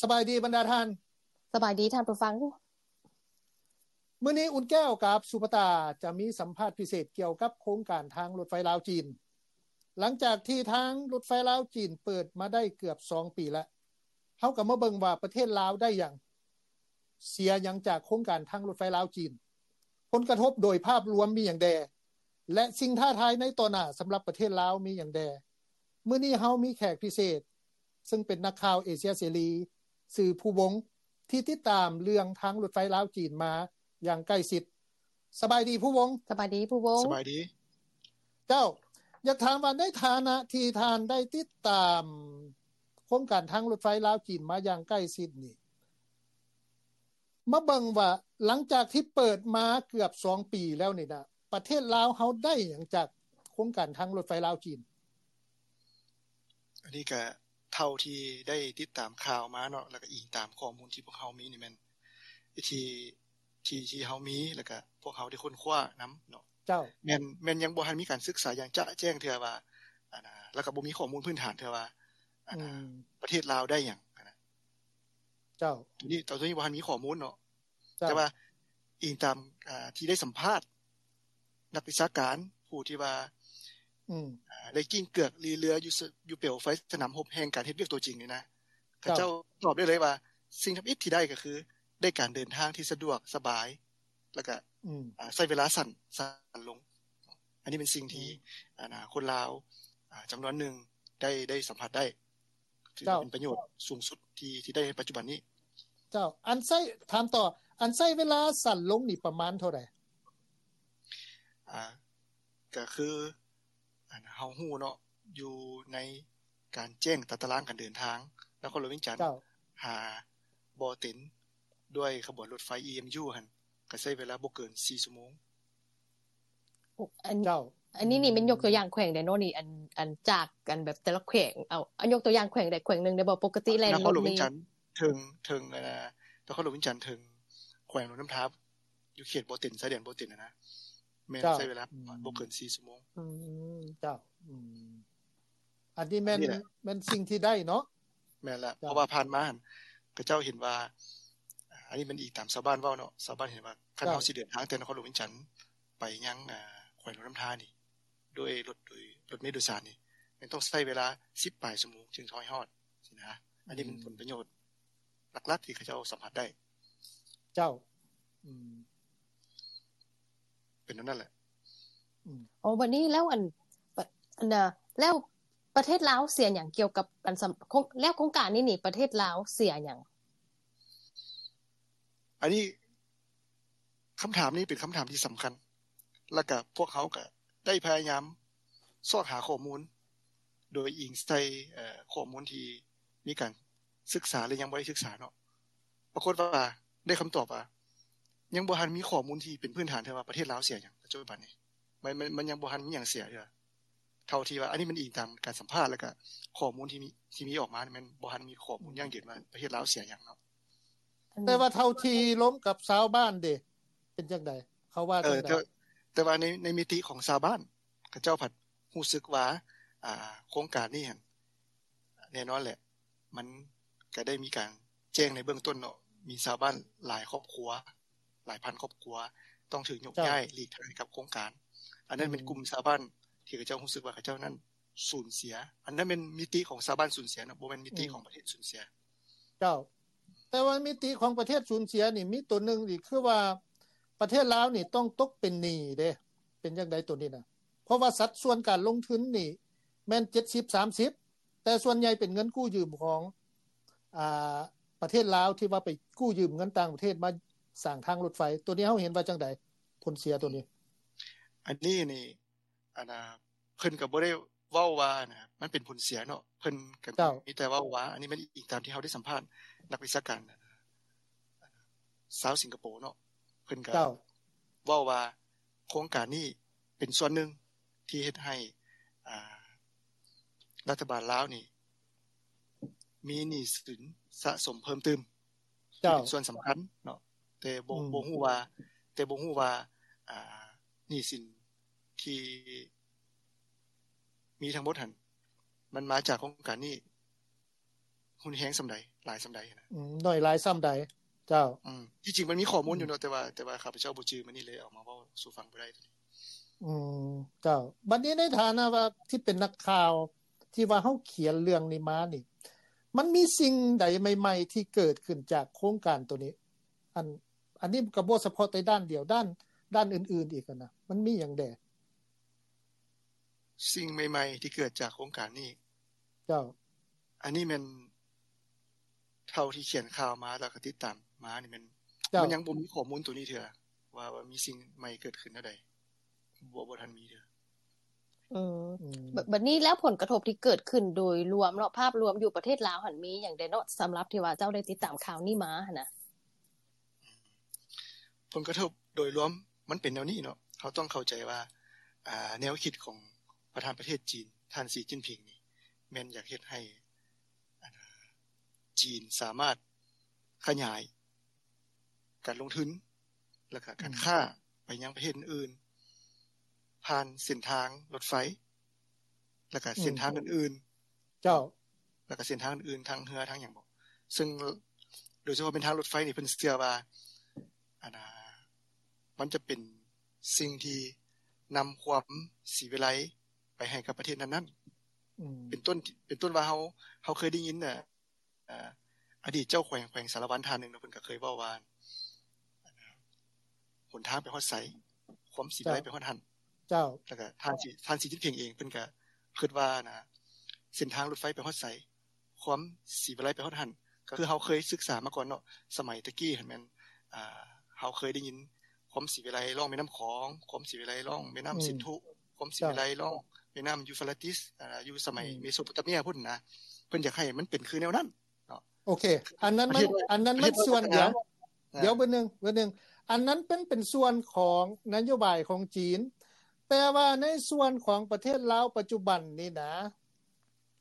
ສະບາຍດີບັນດາທ່ານ. ສະບາຍດີທ່ານຜູ້ຟັງ. ມື້ນີ້ອຸ່ນແກ້ວກັບສຸພະຕາຈະມີສຳພາດພິເສດກ່ຽວກັບໂຄງການທາງລົດໄຟລາວ-ຈີນ. ຫຼັງຈາກທີ່ທາງລົດໄຟລາວ-ຈີນເປີດມາໄດ້ເກືອບສອງປີແລ້ວ, ເຮົາກໍມາເບິ່ງວ່າປະເທດລາວໄດ້ຫຍັງ, ເສຍຫຍັງຈາກໂຄງການທາງລົດໄຟລາວ-ຈີນ, ຜົນກະທົບໂດຍພາບລວມມີຫຍັງແດ່ ແລະ ສິ່ງທ້າທາຍໃນຕໍ່ໜ້າສຳລັບປະເທດລາວມີຫຍັງແດ່. ມື້ນີ້ເຮົາມີແຂກພິເສດ ເຊິ່ງເປັນນັກຂ່າວເອເຊຍເສລີ ຊື່ພູວົງ ທີ່ຕິດຕາມເລື່ອງທາງລົດໄຟລາວ-ຈີນມາຢ່າງໃກ້ຊິດ. ສະບາຍດີພູວົງ. ສະບາຍດີພູວົງ. ສະບາຍດີ. ເຈົ້າ, ຢາກຖາມວ່າໃນຖານະທີ່ທ່ານໄດ້ຕິດຕາມໂຄງການທາງລົດໄຟລາວ-ຈີນມາຢ່າງໃກ້ຊິດນີ້, ມາເບິ່ງວ່າຫຼັງຈາກທີ່ເປີດມາເກືອບສອງປີແລ້ວນີ້ນະ, ປະເທດລາວເຮົາໄດ້ຫຍັງຈາກໂຄງການທາງລົດໄຟລາວ-ຈີນ? ອັນນີ້ກະເທົ່າທີ່ໄດ້ຕິດຕາມຂ່າວມາເນາະ ແລ້ວກະອີງຕາມຂໍ້ມູນທີ່ພວກເຮົາມີນີ້ແມ່ນ ທີ່ ທີ່ ທີ່ເຮົາມີ ແລ້ວກະພວກເຮົາໄດ້ຄົ້ນຄວ້ານຳເນາະ. ເຈົ້າ. ແມ່ນ ແມ່ນຍັງບໍ່ທັນມີການສຶກສາຢ່າງຈະແຈ້ງເທື່ອວ່າ ອັນນະ ແລ້ວກະບໍ່ມີຂໍ້ມູນພື້ນຖານເທື່ອວ່າ ອັນນະ ອືມ ປະເທດລາວໄດ້ຫຍັງ ອັນນະ. ເຈົ້າ. ໂຕນີ້ ໂຕນີ້ບໍ່ທັນມີຂໍ້ມູນເນາະ. ເຈົ້າ. ແຕ່ວ່າອີງຕາມ ອ່າ ທີ່ໄດ້ສຳພາດນັກວິຊາການຜູ້ທີ່ວ່າ ອືມ ອ່າ ໄດ້ກິ້ງເກືອກລີເລືອຢູ່ ສ- ຢູ່ເປວໄຟສະໜາມຮົບແຫ່ງການເຮັດວຽກຕົວຈິງນີ້ນະ ເຂົາເຈົ້າ ເຈົ້າຕອບໄດ້ເລີຍວ່າ ສິ່ງທຳອິດທີ່ໄດ້ກໍຄືໄດ້ການເດີນທາງທີ່ສະດວກສະບາຍ ແລ້ວກະ ອືມ ອ່າ ໃຊ້ເວລາສັ້ນ ສັ້ນລົງ. ອັນນີ້ເປັນສິ່ງທີ່ ອືມ ອັນນະ ຄົນລາວ ອ່າ ຈຳນວນໜຶ່ງໄດ້ ໄດ້ສຳຜັດໄດ້. ຖືວ່າເປັນປະໂຫຍດສູງສຸດທີ່ ທີ່ໄດ້ໃນປັດຈຸບັນນີ້. ເຈົ້າ. ອັນໃຊ້ ຖາມຕໍ່ ອັນໃຊ້ເວລາສັ້ນລົງນີ້ປະມານເທົ່າໃດ? ອ່າ ກະຄື ອັນເຮົາຮູ້ເນາະ ຢູ່ໃນການແຈ້ງຕາຕະລາງການເດີນທາງ ນະຄອນຫຼວງວຽງຈັນ ເຈົ້າ ຫາບໍ່ເຕັນ ດ້ວຍຂະບວນລົດໄຟ ອີເອັມຢູ ຫັ້ນ ກະໃຊ້ເວລາບໍ່ເກີນສີ່ຊົ່ວໂມງ. ໂອ້ ອັນ ເຈົ້າ ອັນນີ້ນີ້ແມ່ນຍົກຕົວຢ່າງແຂວງໃດເນາະນີ້ ອັນ ອັນຈາກ ອັນແບບແຕ່ລະແຂວງ ເອົາ ເອົາຍົກຕົວຢ່າງແຂວງໃດແຂວງໜຶ່ງໄດ້ບໍ່? ປົກກະຕິແລ່ນລົດນີ້ ນະຄອນຫຼວງວຽງຈັນເຖິງ ເຖິງ ເອີ ນະຄອນຫຼວງວຽງຈັນເຖິງແຂວງຫຼວງນ້ຳທາ ຢູ່ເຂດບໍ່ເຕັນ ຊາຍແດນບໍ່ເຕັນຫັ້ນນະ ແມ່ນ ເຈົ້າ ໃຊ້ເວລາ ອືມ ບໍ່ເກີນສີ່ຊົ່ວໂມງ. ອືມ ເຈົ້າ ອືມ ອັນນີ້ແມ່ນ ອັນນີ້ແຫຼະ ແມ່ນສິ່ງທີ່ໄດ້ເນາະ. ແມ່ນລະ ເຈົ້າ ເພາະວ່າຜ່ານມາຫັ້ນ ເຂົາເຈົ້າເຫັນວ່າ ອາ ອັນນີ້ແມ່ນອີງຕາມຊາວບ້ານເວົ້າເນາະ ຊາວບ້ານເຫັນວ່າ ຄັນ ເຈົ້າ ເຮົາຊິເດີນທາງແຕ່ນະຄອນຫຼວງວຽງຈັນໄປຍັງ ອາ ແຂວງຫຼວງນ້ຳທານີ້ ດ້ວຍລົດ ໂດຍລົດເມໂດຍສານນີ້ ແມ່ນຕ້ອງໃຊ້ເວລາສິບປາຍຊົ່ວໂມງຈຶ່ງຈະຮອດ ຊີ້ນະ. ອັນນີ້ແມ່ນ ອືມ ຜົນປະໂຫຍດຫຼັກໆທີ່ເຂົາເຈົ້າສຳຜັດໄດ້. ເຈົ້າ ອືມ ເປັນແນວນັ້ນແຫຼະ. ອືມ ໂອ້ ບັດນີ້ແລ້ວ ອັນ ປະ ອັນນະ ແລ້ວປະເທດລາວເສຍຫຍັງກ່ຽວກັບ ອັນ ສຳ ໂຄງ ແລ້ວໂຄງການນີ້ນີ້ ປະເທດລາວເສຍຫຍັງ? ອັນນີ້ ຄຳຖາມນີ້ເປັນຄຳຖາມທີ່ສຳຄັນ ແລ້ວກະພວກເຮົາກະໄດ້ພະຍາຍາມຊອກຫາຂໍ້ມູນ ໂດຍອີງໃສ່ ເອີ ຂໍ້ມູນທີ່ມີການສຶກສາ ແລະ ຍັງບໍ່ໄດ້ສຶກສາເນາະ. ປາກົດວ່າໄດ້ຄຳຕອບວ່າ ຍັງບໍ່ທັນມີຂໍ້ມູນທີ່ເປັນພື້ນຖານເທື່ອວ່າປະເທດລາວເສຍຫຍັງ ປັດຈຸບັນນີ້ ມັນ ມັນ ມັນຍັງບໍ່ທັນມີຫຍັງເສຍເທື່ອ. ເທົ່າທີ່ວ່າ ອັນນີ້ມັນອີງຕາມການສຳພາດ ແລ້ວກະຂໍ້ມູນທີ່ມີ ທີ່ມີອອກມາ ມັນບໍ່ທັນມີຂໍ້ມູນຢັ້ງຢືນວ່າປະເທດລາວເສຍຫຍັງເນາະ. ແຕ່ວ່າເທົ່າທີ່ລົມກັບຊາວບ້ານເດ ເປັນຈັ່ງໃດ? ເຂົາວ່າ ເອີ ຈັ່ງໃດ? ແຕ່ ແຕ່ວ່າໃນ ໃນມິຕິຂອງຊາວບ້ານ ເຂົາເຈົ້າພັດຮູ້ສຶກວ່າ ອ່າ ໂຄງການນີ້ຫັ້ນ ແນ່ນອນແຫຼະ ມັນກະໄດ້ມີການແຈ້ງໃນເບື້ອງຕົ້ນເນາະ ມີຊາວບ້ານຫຼາຍຄອບຄົວ ຫຼາຍພັນຄອບຄົວ ຕ້ອງຖືກຍົກ ເຈົ້າ ຍ້າຍຫຼີກທາງໃຫ້ກັບໂຄງການ. ອັນນັ້ນ ອືມ ເປັນກຸ່ມຊາວບ້ານທີ່ເຂົາເຈົ້າຮູ້ສຶກວ່າເຂົາເຈົ້ານັ້ນສູນເສຍ. ອັນນັ້ນແມ່ນມິຕິຂອງຊາວບ້ານສູນເສຍເນາະ ບໍ່ແມ່ນມິຕິ ອືມ ຂອງປະເທດສູນເສຍ. ເຈົ້າ. ແຕ່ວ່າມິຕິຂອງປະເທດສູນເສຍນີ້ ມີໂຕໜຶ່ງນີ້ ຄືວ່າປະເທດລາວນີ້ຕ້ອງຕົກເປັນໜີ້ເດ້. ເປັນຈັ່ງໃດໂຕນີ້ນະ? ເພາະວ່າສັດສ່ວນການລົງທຶນນີ້ແມ່ນເຈັດສິບ ສາມສິບ ແຕ່ສ່ວນໃຫຍ່ເປັນເງິນກູ້ຢືມຂອງ ອ່າ ປະເທດລາວ ທີ່ວ່າໄປກູ້ຢືມເງິນຕ່າງປະເທດມາສ້າງທາງລົດໄຟ. ໂຕນີ້ເຮົາເຫັນວ່າຈັ່ງໃດ? ຜົນເສຍໂຕນີ້ ອັນນີ້ນີ້ ອັນນ່າ ເພິ່ນກໍບໍ່ໄດ້ເວົ້າວ່າ ອັນນ່າ ມັນເປັນຜົນເສຍເນາະ ເພິ່ນກໍ ເຈົ້າ ມີແຕ່ເວົ້າວ່າ ອັນນີ້ແມ່ນອີງຕາມທີ່ເຮົາໄດ້ສຳພາດນັກວິຊາການຊາວສິງກະໂປເນາະ ເພິ່ນກໍ ເຈົ້າ ເວົ້າວ່າໂຄງການນີ້ເປັນສ່ວນໜຶ່ງທີ່ເຮັດໃຫ້ ອ່າ ລັດຖະບານລາວນີ້ມີໜີ້ສິນສະສົມເພີ່ມຕື່ມ ເຈົ້າ ເປັນສ່ວນສຳຄັນເນາະ ແຕ່ບໍ່ ອືມ ບໍ່ຮູ້ວ່າ ແຕ່ບໍ່ຮູ້ວ່າ ອ່າ ໜີ້ສິນທີ່ມີທັງໝົດຫັ້ນ ມັນມາຈາກໂຄງການນີ້ ຮຸນແຮງສ່ຳໃດ ຫຼາຍສ່ຳໃດນະ. ອືມ ໜ້ອຍຫຼາຍສ່ຳໃດ? ເຈົ້າ. ອືມ ທີ່ຈິງມັນມີຂໍ້ມູນຢູ່ເນາະ ອືມ ແຕ່ວ່າ ແຕ່ວ່າຂ້າພະເຈົ້າບໍ່ຈື່ມື້ນີ້ ເລີຍເອົາມາເວົ້າສູ່ຟັງບໍ່ໄດ້. ອືມ ເຈົ້າ. ບັດນີ້ໃນຖານະວ່າທີ່ເປັນນັກຂ່າວ ທີ່ວ່າເຮົາຂຽນເລື່ອງນີ້ມານີ້ ມັນມີສິ່ງໃດໃໝ່ໆທີ່ເກີດຂຶ້ນຈາກໂຄງການໂຕນີ້? ອັນ ອັນນີ້ກໍບໍ່ສະເພາະແຕ່ດ້ານດຽວ ດ້ານ ດ້ານອື່ນໆອີກຫັ້ນນະ ມັນມີຫຍັງແດ່? ສິ່ງໃໝ່ໆທີ່ເກີດຈາກໂຄງການນີ້? ເຈົ້າ. ອັນນີ້ແມ່ນ ເທົ່າທີ່ຂຽນຂ່າວມາ ແລ້ວກໍຕິດຕາມມານີ້ແມ່ນ ເຈົ້າ ມັນຍັງບໍ່ມີຂໍ້ມູນໂຕນີ້ເທື່ອ ວ່າ ວ່າມີສິ່ງໃໝ່ເກີດຂຶ້ນແນວໃດ ບໍ່ ບໍ່ທັນມີເທື່ອ. ອືມ ອືມ ບ- ບັດນີ້ແລ້ວຜົນກະທົບທີ່ເກີດຂຶ້ນໂດຍລວມເນາະ ພາບລວມຢູ່ປະເທດລາວຫັ້ນມີຫຍັງແດ່ເນາະ ສຳລັບທີ່ວ່າເຈົ້າໄດ້ຕິດຕາມຂ່າວນີ້ມາຫັ້ນນະ? ຜົນກະທົບໂດຍລວມມັນເປັນແນວນີ້ເນາະ ເຮົາຕ້ອງເຂົ້າໃຈວ່າ ອ່າ ແນວຄິດຂອງປະທານປະເທດຈີນ ທ່ານ ສີ ຈິ້ນຜິງ ນີ້ ແມ່ນຢາກເຮັດໃຫ້ ອັນ ຈີນສາມາດຂະຫຍາຍການລົງທຶນ ແລ້ວກະການ ອືມ ຄ້າໄປຍັງປະເທດອື່ນໆ ຜ່ານເສັ້ນທາງລົດໄຟ ແລ້ວກະ ອືມ ເສັ້ນທາງອື່ນໆ. ເຈົ້າ. ແລ້ວກະເສັ້ນທາງອື່ນໆ ທາງເຮືອ ທາງຫຍັງບໍ ເຊິ່ງໂດຍສະເພາະເປັນທາງລົດໄຟນີ້ ເພິ່ນເຊື່ອວ່າ ອັນ ມັນຈະເປັນສິ່ງທີ່ນຳຄວາມສີວິໄລໄປໃຫ້ກັບປະເທດນັ້ນໆ. ອືມ ເປັນຕົ້ນ ເປັນຕົ້ນວ່າເຮົາ ເຮົາເຄີຍໄດ້ຍິນ ອ່າ ອະດີດເຈົ້າແຂວງ ແຂວງສາລະວັນທ່ານໜຶ່ງເນາະ ເພິ່ນກໍເຄີຍເວົ້າວ່າ ຫົນທາງໄປຮອດໃສ ຄວາມສີວິໄລໄປຮອດຫັ້ນ. ເຈົ້າ. ແລ້ວກໍທ່ານສີ ທ່ານສີຈິ້ນຜິງເອງ ເພິ່ນກໍຄິດວ່ານະ ເສັ້ນທາງລົດໄຟໄປຮອດໃສ ຄວາມສີວິໄລໄປຮອດຫັ້ນ. ກໍຄືເຮົາເຄີຍສຶກສາມາກ່ອນເນາະ ສະໄໝແຕ່ກີ້ຫັ້ນແມ່ນ ອ່າ ເຮົາເຄີຍໄດ້ຍິນຄວາມສີວິໄລລ່ອງແມ່ນ້ຳຂອງ ຄວາມສີວິໄລລ່ອງແມ່ນ້ຳ ອືມ ສິນທຸ ຄວາມສີວິໄລ ເຈົ້າ ລ່ອງແມ່ນ້ຳຢູຟຣາຕິສ ອ່າ ຢູ່ສະໄໝ ອືມ ເມໂສໂປຕາເມຍພຸ້ນນະ ເພິ່ນຢາກໃຫ້ມັນເປັນຄືແນວນັ້ນເນາະ. ໂອເຄ ອັນນັ້ນມັນ ອັນນັ້ນມັນສ່ວນດຽວ ດຽວເບິ່ງໜຶ່ງ ເບິ່ງໜຶ່ງ ອັນນັ້ນເປັນ ເປັນສ່ວນຂອງນະໂຍບາຍຂອງຈີນ ແຕ່ວ່າໃນສ່ວນຂອງປະເທດລາວປັດຈຸບັນນີ້ນະ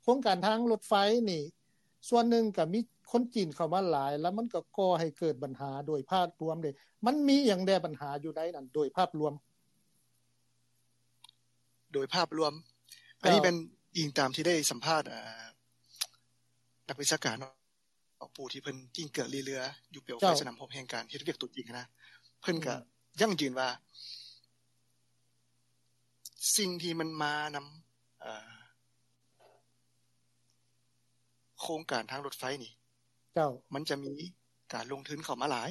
ໂຄງການທາງລົດໄຟນີ້ ສ່ວນໜຶ່ງກໍມີຄົນຈີນເຂົ້າມາຫຼາຍ ແລ້ວມັນກໍກໍ່ໃຫ້ເກີດບັນຫາໂດຍພາບລວມເດ້ ມັນມີຫຍັງແດ່ບັນຫາຢູ່ໃນນັ້ນໂດຍພາບລວມ? ໂດຍພາບລວມ ເຈົ້າ ອັນນີ້ແມ່ນອີງຕາມທີ່ໄດ້ສຳພາດ ເອີ ນັກວິຊາການເນາະ ຜູ້ທີ່ເພິ່ນກິ້ງເກືອກລີ້ເຫຼືອຢູ່ເປວໄຟ ເຈົ້າ ສະໜາມຮົບແຫ່ງການເຮັດວຽກຕົວຈິງຫັ້ນນະ ເພິ່ນກໍ ອືມ ຢັ້ງຢືນວ່າ ສິ່ງທີ່ມັນມານຳ ເອີ ໂຄງການທາງລົດໄຟນີ້ ເຈົ້າ ມັນຈະມີການລົງທຶນເຂົ້າມາຫຼາຍ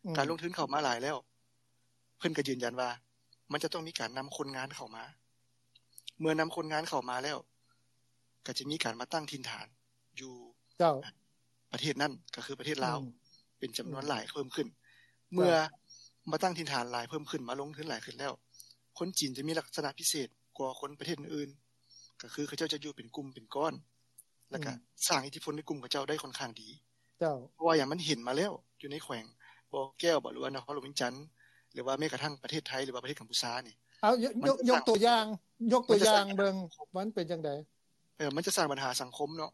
ອືມ ການລົງທຶນເຂົ້າມາຫຼາຍແລ້ວ ເພິ່ນກໍຢືນຢັນວ່າ ມັນຈະຕ້ອງມີການນຳຄົນງານເຂົ້າມາ ເມື່ອນຳຄົນງານເຂົ້າມາແລ້ວ ກໍຈະມີການມາຕັ້ງຖິ່ນຖານຢູ່ ເຈົ້າ ປະເທດນັ້ນ ກໍຄືປະເທດລາວ ອືມ ເປັນຈຳນວນ ອືມ ຫຼາຍເພີ່ມຂຶ້ນ ເຈົ້າ ເມື່ອມາຕັ້ງຖິ່ນຖານຫຼາຍເພີ່ມຂຶ້ນ ມາລົງທຶນຫຼາຍຂຶ້ນແລ້ວ ຄົນຈີນຈະມີລັກສະນະພິເສດກວ່າຄົນປະເທດອື່ນ ກໍຄືເຂົາເຈົ້າຈະຢູ່ເປັນກຸ່ມເປັນກ້ອນ ແລ້ວກໍ ອືມ ສ້າງອິດທິພົນໃນກຸ່ມເຂົາເຈົ້າໄດ້ຄ່ອນຂ້າງດີ ເຈົ້າ ເພາະວ່າຫຍັງ ມັນເຫັນມາແລ້ວ ຢູ່ໃນແຂວງບໍ່ແກ້ວບໍ ຫຼືວ່ານະຄອນຫຼວງວຽງຈັນ ຫຼືວ່າແມ້ກະທັ່ງປະເທດໄທ ຫຼືວ່າປະເທດກຳປູຊານີ້ ເອົາ ຍົກ ຍົກ ຍົກຕົວຢ່າງ ຍົກຕົວຢ່າງເບິ່ງ ມັນເປັນຈັ່ງໃດ? ເອີ ມັນຈະສ້າງບັນຫາສັງຄົມເນາະ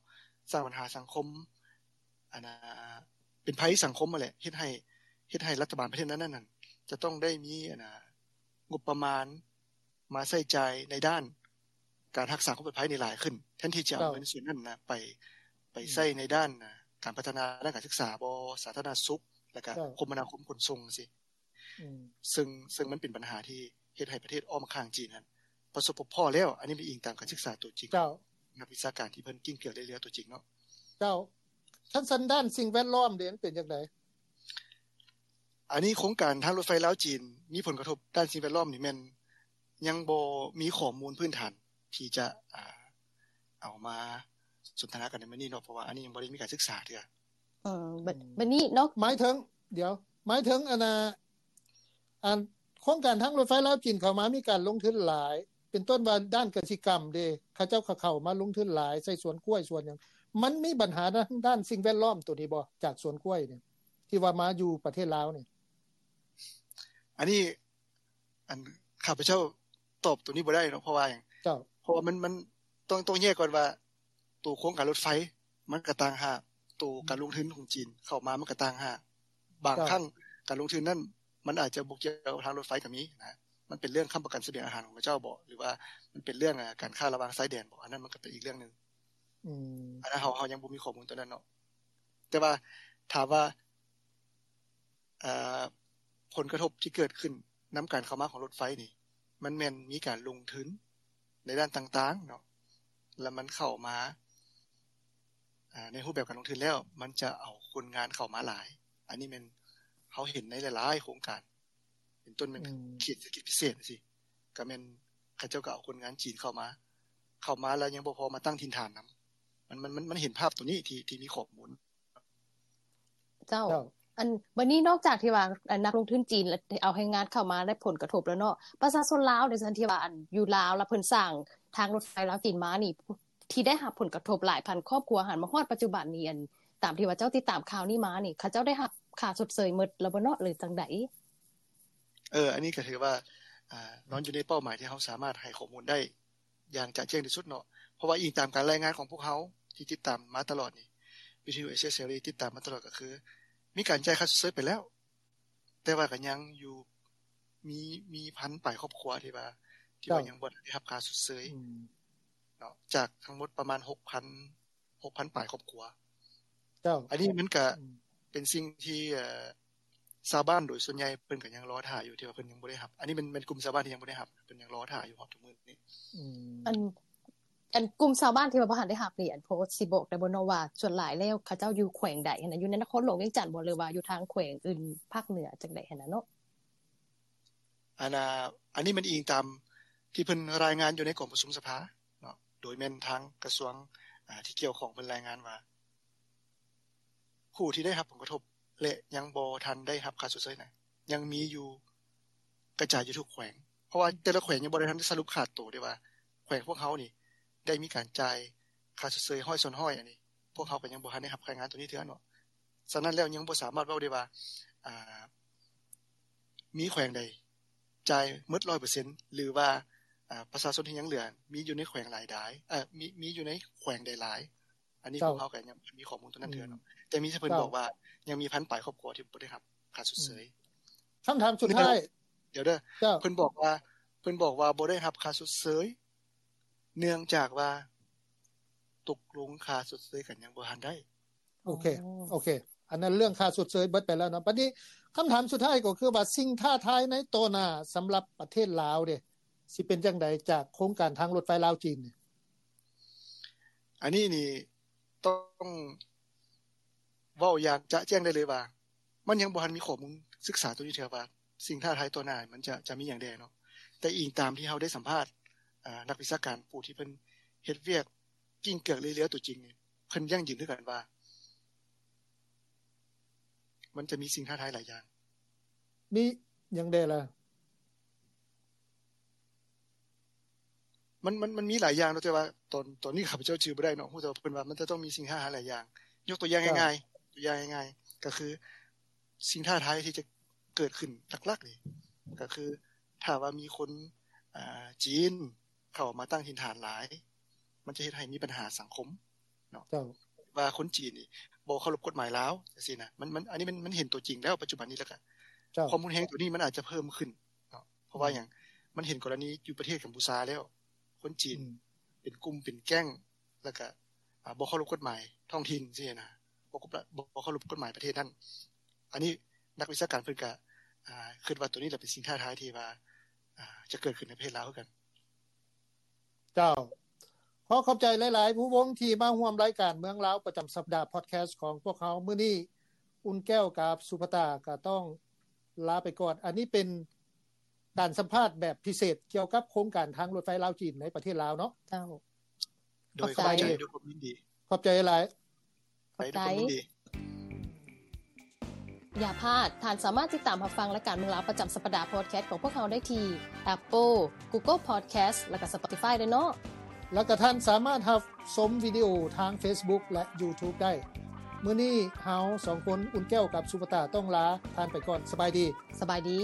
ສ້າງບັນຫາສັງຄົມ ອັນນ່າ ເປັນໄພສັງຄົມຫັ້ນແຫຼະ ເຮັດໃຫ້ ເຮັດໃຫ້ລັດຖະບານປະເທດນັ້ນໆ ຈະຕ້ອງໄດ້ມີ ອັນນ່າ ງົບປະມານມາໃຊ້ຈ່າຍໃນດ້ານການຮັກສາຄວາມປອດໄພນີ້ຫຼາຍຂຶ້ນ ແທນທີ່ຈະເອົາ ເຈົ້າ ເງິນສ່ວນນັ້ນນະ ໄປ ໄປ ອືມ ໃຊ້ໃນດ້ານ ອ່າ ການພັດທະນາດ້ານການສຶກສາບໍ ສາທາລະນະສຸກ ແລ້ວກະ ເຈົ້າ ຄົມມະນາຄົມຂົນສົ່ງຈັ່ງຊີ້ ອືມ ເຊິ່ງ ເຊິ່ງມັນເປັນບັນຫາທີ່ເຮັດໃຫ້ປະເທດອ້ອມຂ້າງຈີນຫັ້ນປະສົບພົບພໍ້ແລ້ວ ອັນນີ້ເປັນອີງຕາມການສຶກສາຕົວຈິງ ເຈົ້າ ນັກວິຊາການທີ່ເພິ່ນກິ້ງເກືອກເລື່ອຍຕົວຈິງເນາະ ເຈົ້າ. ຄັນຊັ້ນດ້ານສິ່ງແວດລ້ອມເດ ມັນເປັນຈັ່ງໃດ? ອັນນີ້ໂຄງການທາງລົດໄຟລາວຈີນມີຜົນກະທົບດ້ານສິ່ງແວດລ້ອມນີ້ແມ່ນຍັງບໍ່ມີຂໍ້ມູນພື້ນຖານທີ່ຈະ ອ່າ ເອົາມາສົນທະນາກັນໃນມື້ນີ້ເນາະ ເພາະວ່າອັນນີ້ຍັງບໍ່ໄດ້ມີການສຶກສາເທື່ອ. ເອີ ບ- ອືມ ບັດນີ້ເນາະ ໝາຍເຖິງ ດຽວ ໝາຍເຖິງ ອັນນ່າ ອັນໂຄງການທາງລົດໄຟລາວຈີນເຂົ້າມາມີການລົງທຶນຫຼາຍ ເປັນຕົ້ນວ່າດ້ານກະສິກຳເດ ເຂົາເຈົ້າກໍເຂົ້າມາລົງທຶນຫຼາຍ ໃສ່ສວນກ້ວຍສວນຫຍັງ ມັນມີບັນຫາທາງດ້ານສິ່ງແວດລ້ອມໂຕນີ້ບໍ່ ຈາກສວນກ້ວຍນີ້ ທີ່ວ່າມາຢູ່ປະເທດລາວນີ້? ອັນນີ້ ອັນ ຂ້າພະເຈົ້າຕອບໂຕນີ້ບໍ່ໄດ້ເນາະ ເພາະວ່າຫຍັງ? ເຈົ້າ ເພາະວ່າມັນ ມັນຕ້ອງ ຕ້ອງແຍກກ່ອນວ່າ ໂຕໂຄງການລົດໄຟມັນກໍຕ່າງຫາກ ໂຕການລົງທຶນຂອງຈີນເຂົ້າມາມັນກໍຕ່າງຫາກ ບາງ ເຈົ້າ ຄັ້ງການລົງທຶນນັ້ນມັນອາດຈະບໍ່ກ່ຽວທາງລົດໄຟກໍມີນະ ມັນເປັນເລື່ອງຄ້ຳປະກັນສະບຽງອາຫານຂອງເຂົາເຈົ້າບໍ ຫຼືວ່າມັນເປັນເລື່ອງ ອາ ການຄ້າລະຫວ່າງຊາຍແດນບໍ ອັນນັ້ນມັນກໍເປັນອີກເລື່ອງໜຶ່ງ. ອືມ ອັນນັ້ນເຮົາ ເຮົາຍັງບໍ່ມີຂໍ້ມູນຕົວນັ້ນເນາະ. ແຕ່ວ່າຖາມວ່າ ເອີ່ ຜົນກະທົບທີ່ເກີດຂຶ້ນນຳການເຂົ້າມາຂອງລົດໄຟນີ້ ມັນແມ່ນມີການລົງທຶນໃນດ້ານຕ່າງໆເນາະ ແລ້ວມັນເຂົ້າມາ ອາ ໃນຮູບແບບການລົງທຶນແລ້ວ ມັນຈະເອົາຄົນງານເຂົ້າມາຫຼາຍ. ອັນນີ້ແມ່ນເຮົາເຫັນໃນຫຼາຍໆໂຄງການ ເປັນຕົ້ນແມ່ນ ອືມ ເຂດເສດຖະກິດພິເສດຈັ່ງຊີ້ ກໍແມ່ນເຂົາເຈົ້າກໍເອົາຄົນງານຈີນເຂົ້າມາ ເຂົ້າມາແລ້ວຍັງບໍ່ພໍມາຕັ້ງຖິ່ນຖານນຳ. ມັນ ມັນ ມັນ ມັນເຫັນພາບໂຕນີ້ທີ່ ທີ່ມີຂໍ້ມູນ. ເຈົ້າ ເຈົ້າ ອັນ ບັດນີ້ນອກຈາກທີ່ວ່າ ອັນ ນັກລົງທຶນຈີນເອົາແຮງງານເຂົ້າມາໄດ້ຜົນກະທົບແລ້ວເນາະ ປະຊາຊົນລາວໃນສ່ວນທີ່ວ່າ ອັນ ຢູ່ລາວ ແລ້ວເພິ່ນສ້າງທາງລົດໄຟລາວຈີນມານີ້ ທີ່ໄດ້ຮັບຜົນກະທົບຫຼາຍພັນຄອບຄົວຫັ້ນ ມາຮອດປັດຈຸບັນນີ້ ອັນ ຕາມທີ່ວ່າເຈົ້າຕິດຕາມຂ່າວນີ້ມານີ້ ເຂົາເຈົ້າໄດ້ຮັບຄ່າຊົດເຊີຍໝົດແລ້ວບໍ່ເນາະ ຫຼື ຈັ່ງໃດ? ເອີ ອັນນີ້ກໍຖືວ່າ ອາ ນອນຢູ່ໃນເປົ້າໝາຍທີ່ເຮົາສາມາດໃຫ້ຂໍ້ມູນໄດ້ຢ່າງຈະແຈ້ງທີ່ສຸດເນາະ ເພາະວ່າອີງຕາມການລາຍງານຂອງພວກເຮົາທີ່ຕິດຕາມມາຕະຫຼອດນີ້ ວິທະຍຸເອເຊຍເສລີຕິດຕາມມາຕະຫຼອດ ກໍຄືມີການຈ່າຍຄ່າຊົດເຊີຍໄປແລ້ວ ແຕ່ວ່າກໍຍັງຢູ່ ມີ ມີພັນປາຍຄອບຄົວທີ່ວ່າ ທີ່ວ່າ ເຈົ້າ ຍັງບໍ່ໄດ້ຮັບຄ່າຊົດເຊີຍ ອືມ ເນາະ ຈາກທັງໝົດປະມານ ຫົກພັນ ຫົກພັນປາຍຄອບຄົວ. ເຈົ້າ ອັນນີ້ມັນກະ ອືມ ເປັນສິ່ງທີ່ ເອີ່ ຊາວບ້ານໂດຍສ່ວນໃຫຍ່ເພິ່ນກໍຍັງລໍຖ້າຢູ່ ທີ່ວ່າເພິ່ນຍັງບໍ່ໄດ້ຮັບ. ອັນນີ້ແມ່ນ ແມ່ນກຸ່ມຊາວບ້ານທີ່ຍັງບໍ່ໄດ້ຮັບ ເພິ່ນຍັງລໍຖ້າຢູ່ຮອດທຸກມື້ນີ້. ອືມ ອັນ ອັນກຸ່ມຊາວບ້ານທີ່ວ່າບໍ່ທັນໄດ້ຮັບນີ້ ອັນ ພໍຊິບອກໄດ້ບໍ່ເນາະວ່າ ສ່ວນຫຼາຍແລ້ວເຂົາເຈົ້າຢູ່ແຂວງໃດຫັ້ນນະ? ຢູ່ໃນນະຄອນຫຼວງວຽງຈັນບໍ່ ຫຼືວ່າຢູ່ທາງແຂວງອື່ນພາກເໜືອຈັ່ງໃດຫັ້ນນະເນາະ? ອັນ ອາ ອັນນີ້ມັນອີງຕາມທີ່ເພິ່ນລາຍງານຢູ່ໃນກອງປະຊຸມສະພາເນາະ ໂດຍແມ່ນທາງກະຊວງ ອາ ທີ່ກ່ຽວຂ້ອງເພິ່ນລາຍງານວ່າ ຜູ້ທີ່ໄດ້ຮັບຜົນກະທົບ ແລະ ຍັງບໍ່ທັນໄດ້ຮັບຄ່າຊົດເຊີຍນັ້ນ ຍັງມີຢູ່ກະຈາຍຢູ່ທຸກແຂວງ ເພາະວ່າແຕ່ລະແຂວງຍັງບໍ່ໄດ້ທັນໄດ້ສະຫຼຸບຂາດໂຕເດ້ວ່າ ແຂວງພວກເຮົານີ້ໄດ້ມີການຈ່າຍຄ່າຊົດເຊີຍຮ້ອຍສ່ວນຮ້ອຍ ອັນນີ້ພວກເຮົາກໍຍັງບໍ່ທັນໄດ້ຮັບລາຍງານໂຕນີ້ເທື່ອເນາະ. ສະນັ້ນແລ້ວຍັງບໍ່ສາມາດເວົ້າໄດ້ວ່າ ອາ ມີແຂວງໃດຈ່າຍໝົດຮ້ອຍເປີເຊັນ ຫຼືວ່າ ອາ ປະຊາຊົນທີ່ຍັງເຫຼືອມີຢູ່ໃນແຂວງຫຼາຍໃດ ເອີ ມີ ມີຢູ່ໃນແຂວງໃດຫຼາຍ ອັນນີ້ ເຈົ້າ ພວກເຮົາກໍຍັງບໍ່ມີຂໍ້ມູນຕົວນັ້ນເທື່ອເນາະ ອືມ ແຕ່ມີ ເພິ່ນ ເຈົ້າ ບອກວ່າຍັງມີພັນປາຍຄອບຄົວທີ່ບໍ່ໄດ້ຮັບຄ່າຊົດເຊີຍ. ອືມ ຄຳຖາມສຸດທ້າຍ ດຽວເດີ ເຈົ້າ ເພິ່ນບອກວ່າ ເພິ່ນບອກວ່າບໍ່ໄດ້ຮັບຄ່າຊົດເຊີຍ ເນື່ອງຈາກວ່າຕົກລົງຄ່າຊົດເຊີຍກັນຍັງບໍ່ທັນໄດ້. ໂອເຄ ໂອເຄ ອັນນັ້ນເລື່ອງຄ່າຊົດເຊີຍເບິດໄປແລ້ວເນາະ. ບັດນີ້ຄຳຖາມສຸດທ້າຍກໍຄືວ່າ ສິ່ງທ້າທາຍໃນຕໍ່ໜ້າສຳລັບປະເທດລາວເດ ຊິເປັນຈັ່ງໃດຈາກໂຄງການທາງລົດໄຟລາວຈີນນີ້? ອັນນີ້ນີ້ຕ້ອງເວົ້າຢ່າງຈະແຈ້ງໄດ້ເລີຍວ່າ ມັນຍັງບໍ່ທັນມີຂໍ້ມູນສຶກສາຕົວນີ້ເທື່ອວ່າ ສິ່ງທ້າທາຍຕໍ່ໜ້າມັນຈະ ຈະມີຫຍັງແດ່ເນາະ. ແຕ່ອີງຕາມທີ່ເຮົາໄດ້ສຳພາດ ອາ ນັກວິຊາການຜູ້ທີ່ເພິ່ນເຮັດວຽກ ກິ້ງເກືອກເລື້ອຍໆຕົວຈິງນີ້ ເພິ່ນຢັ້ງຢືນຄືກັນວ່າ ມັນຈະມີສິ່ງທ້າທາຍຫຼາຍຢ່າງ. ມີຫຍັງແດ່ລະ? ມັນ ມັນ ມັນມີຫຼາຍຢ່າງເນາະ ແຕ່ວ່າຕອນ ຕອນນີ້ຂ້າພະເຈົ້າຈື່ບໍ່ໄດ້ເນາະ. ຮູ້ແຕ່ວ່າເພິ່ນວ່າມັນຈະຕ້ອງມີສິ່ງທ້າທາຍຫຼາຍຢ່າງ. ຍົກຕົວຢ່າງ ເຈົ້າ ງ່າຍໆ ຕົວຢ່າງງ່າຍໆ ກໍຄື ສິ່ງທ້າທາຍທີ່ຈະເກີດຂຶ້ນຫຼັກໆນີ້ ກໍຄື ຖ້າວ່າມີຄົນ ອາ ຈີນເຂົ້າມາຕັ້ງຖິ່ນຖານຫຼາຍ ມັນຈະເຮັດໃຫ້ມີບັນຫາສັງຄົມເນາະ ເຈົ້າ ວ່າຄົນຈີນນີ້ບໍ່ເຄົາລົບກົດໝາຍລາວ ຈັ່ງຊີ້ນະ. ມັນ ມັນ ອັນນີ້ມັນ ມັນເຫັນຕົວຈິງແລ້ວປັດຈຸບັນນີ້ ແລ້ວກໍ ເຈົ້າ ຄວາມຮຸນແຮງຕົວນີ້ມັນອາດຈະເພີ່ມຂຶ້ນເນາະ ເພາະວ່າ ອືມ ຫຍັງ? ມັນເຫັນກໍລະນີຢູ່ປະເທດກຳປູຊາແລ້ວ ຄົນຈີນ ອືມ ເປັນກຸ່ມເປັນແກ້ງ ແລ້ວກະ ອາ ບໍ່ເຄົາລົບກົດໝາຍທ້ອງຖິ່ນຊີ້ນະ ບໍ່ ບໍ່ເຄົາລົບກົດໝາຍປະເທດນັ້ນ. ອັນນີ້ນັກວິຊາການເພິ່ນກະ ອາ ຄິດວ່າໂຕນີ້ລະເປັນສິ່ງທ້າທາຍທີ່ວ່າ ອາ ຈະເກີດຂຶ້ນໃນປະເທດລາວຄືກັນ. ເຈົ້າ ຂໍຂອບໃຈຫຼາຍໆ ພູວົງ ທີ່ມາຮ່ວມລາຍການເມືອງລາວປະຈຳສັບດາພອດແຄສຂອງພວກເຮົາມື້ນີ້. ອຸ່ນແກ້ວກັບສຸພະຕາກໍຕ້ອງລາໄປກ່ອນ. ອັນນີ້ເປັນ ການສຳພາດແບບພິເສດກ່ຽວກັບໂຄງການທາງລົດໄຟລາວຈີນໃນປະເທດລາວເນາະ. ເຈົ້າ ໂດຍ ຂອບໃຈ ຂອບໃຈ ດ້ວຍຄວາມຍິນດີ. ຂອບໃຈຫຼາຍ. ຂອບໃຈ ດ້ວຍຄວາມຍິນດີ. ຢ່າພາດ, ທ່ານສາມາດຕິດຕາມຮັບຟັງລາຍການເມືອງລາວປະຈຳສັບປະດາພອດແຄສຂອງພວກເຮົາໄດ້ທີ່ Apple, Google Podcast ແລະກະ Spotify ເດີເນາະ. ແລະກະທ່ານສາມາດຮັບຊົມວິດີໂອທາງ Facebook ແລະ YouTube ໄດ້. ມື້ນີ້ເຮົາສອງຄົນ ອຸ່ນແກ້ວກັບສຸພະຕາ ຕ້ອງລາທ່ານໄປກ່ອນ. ສະບາຍດີ. ສະບາຍດີ.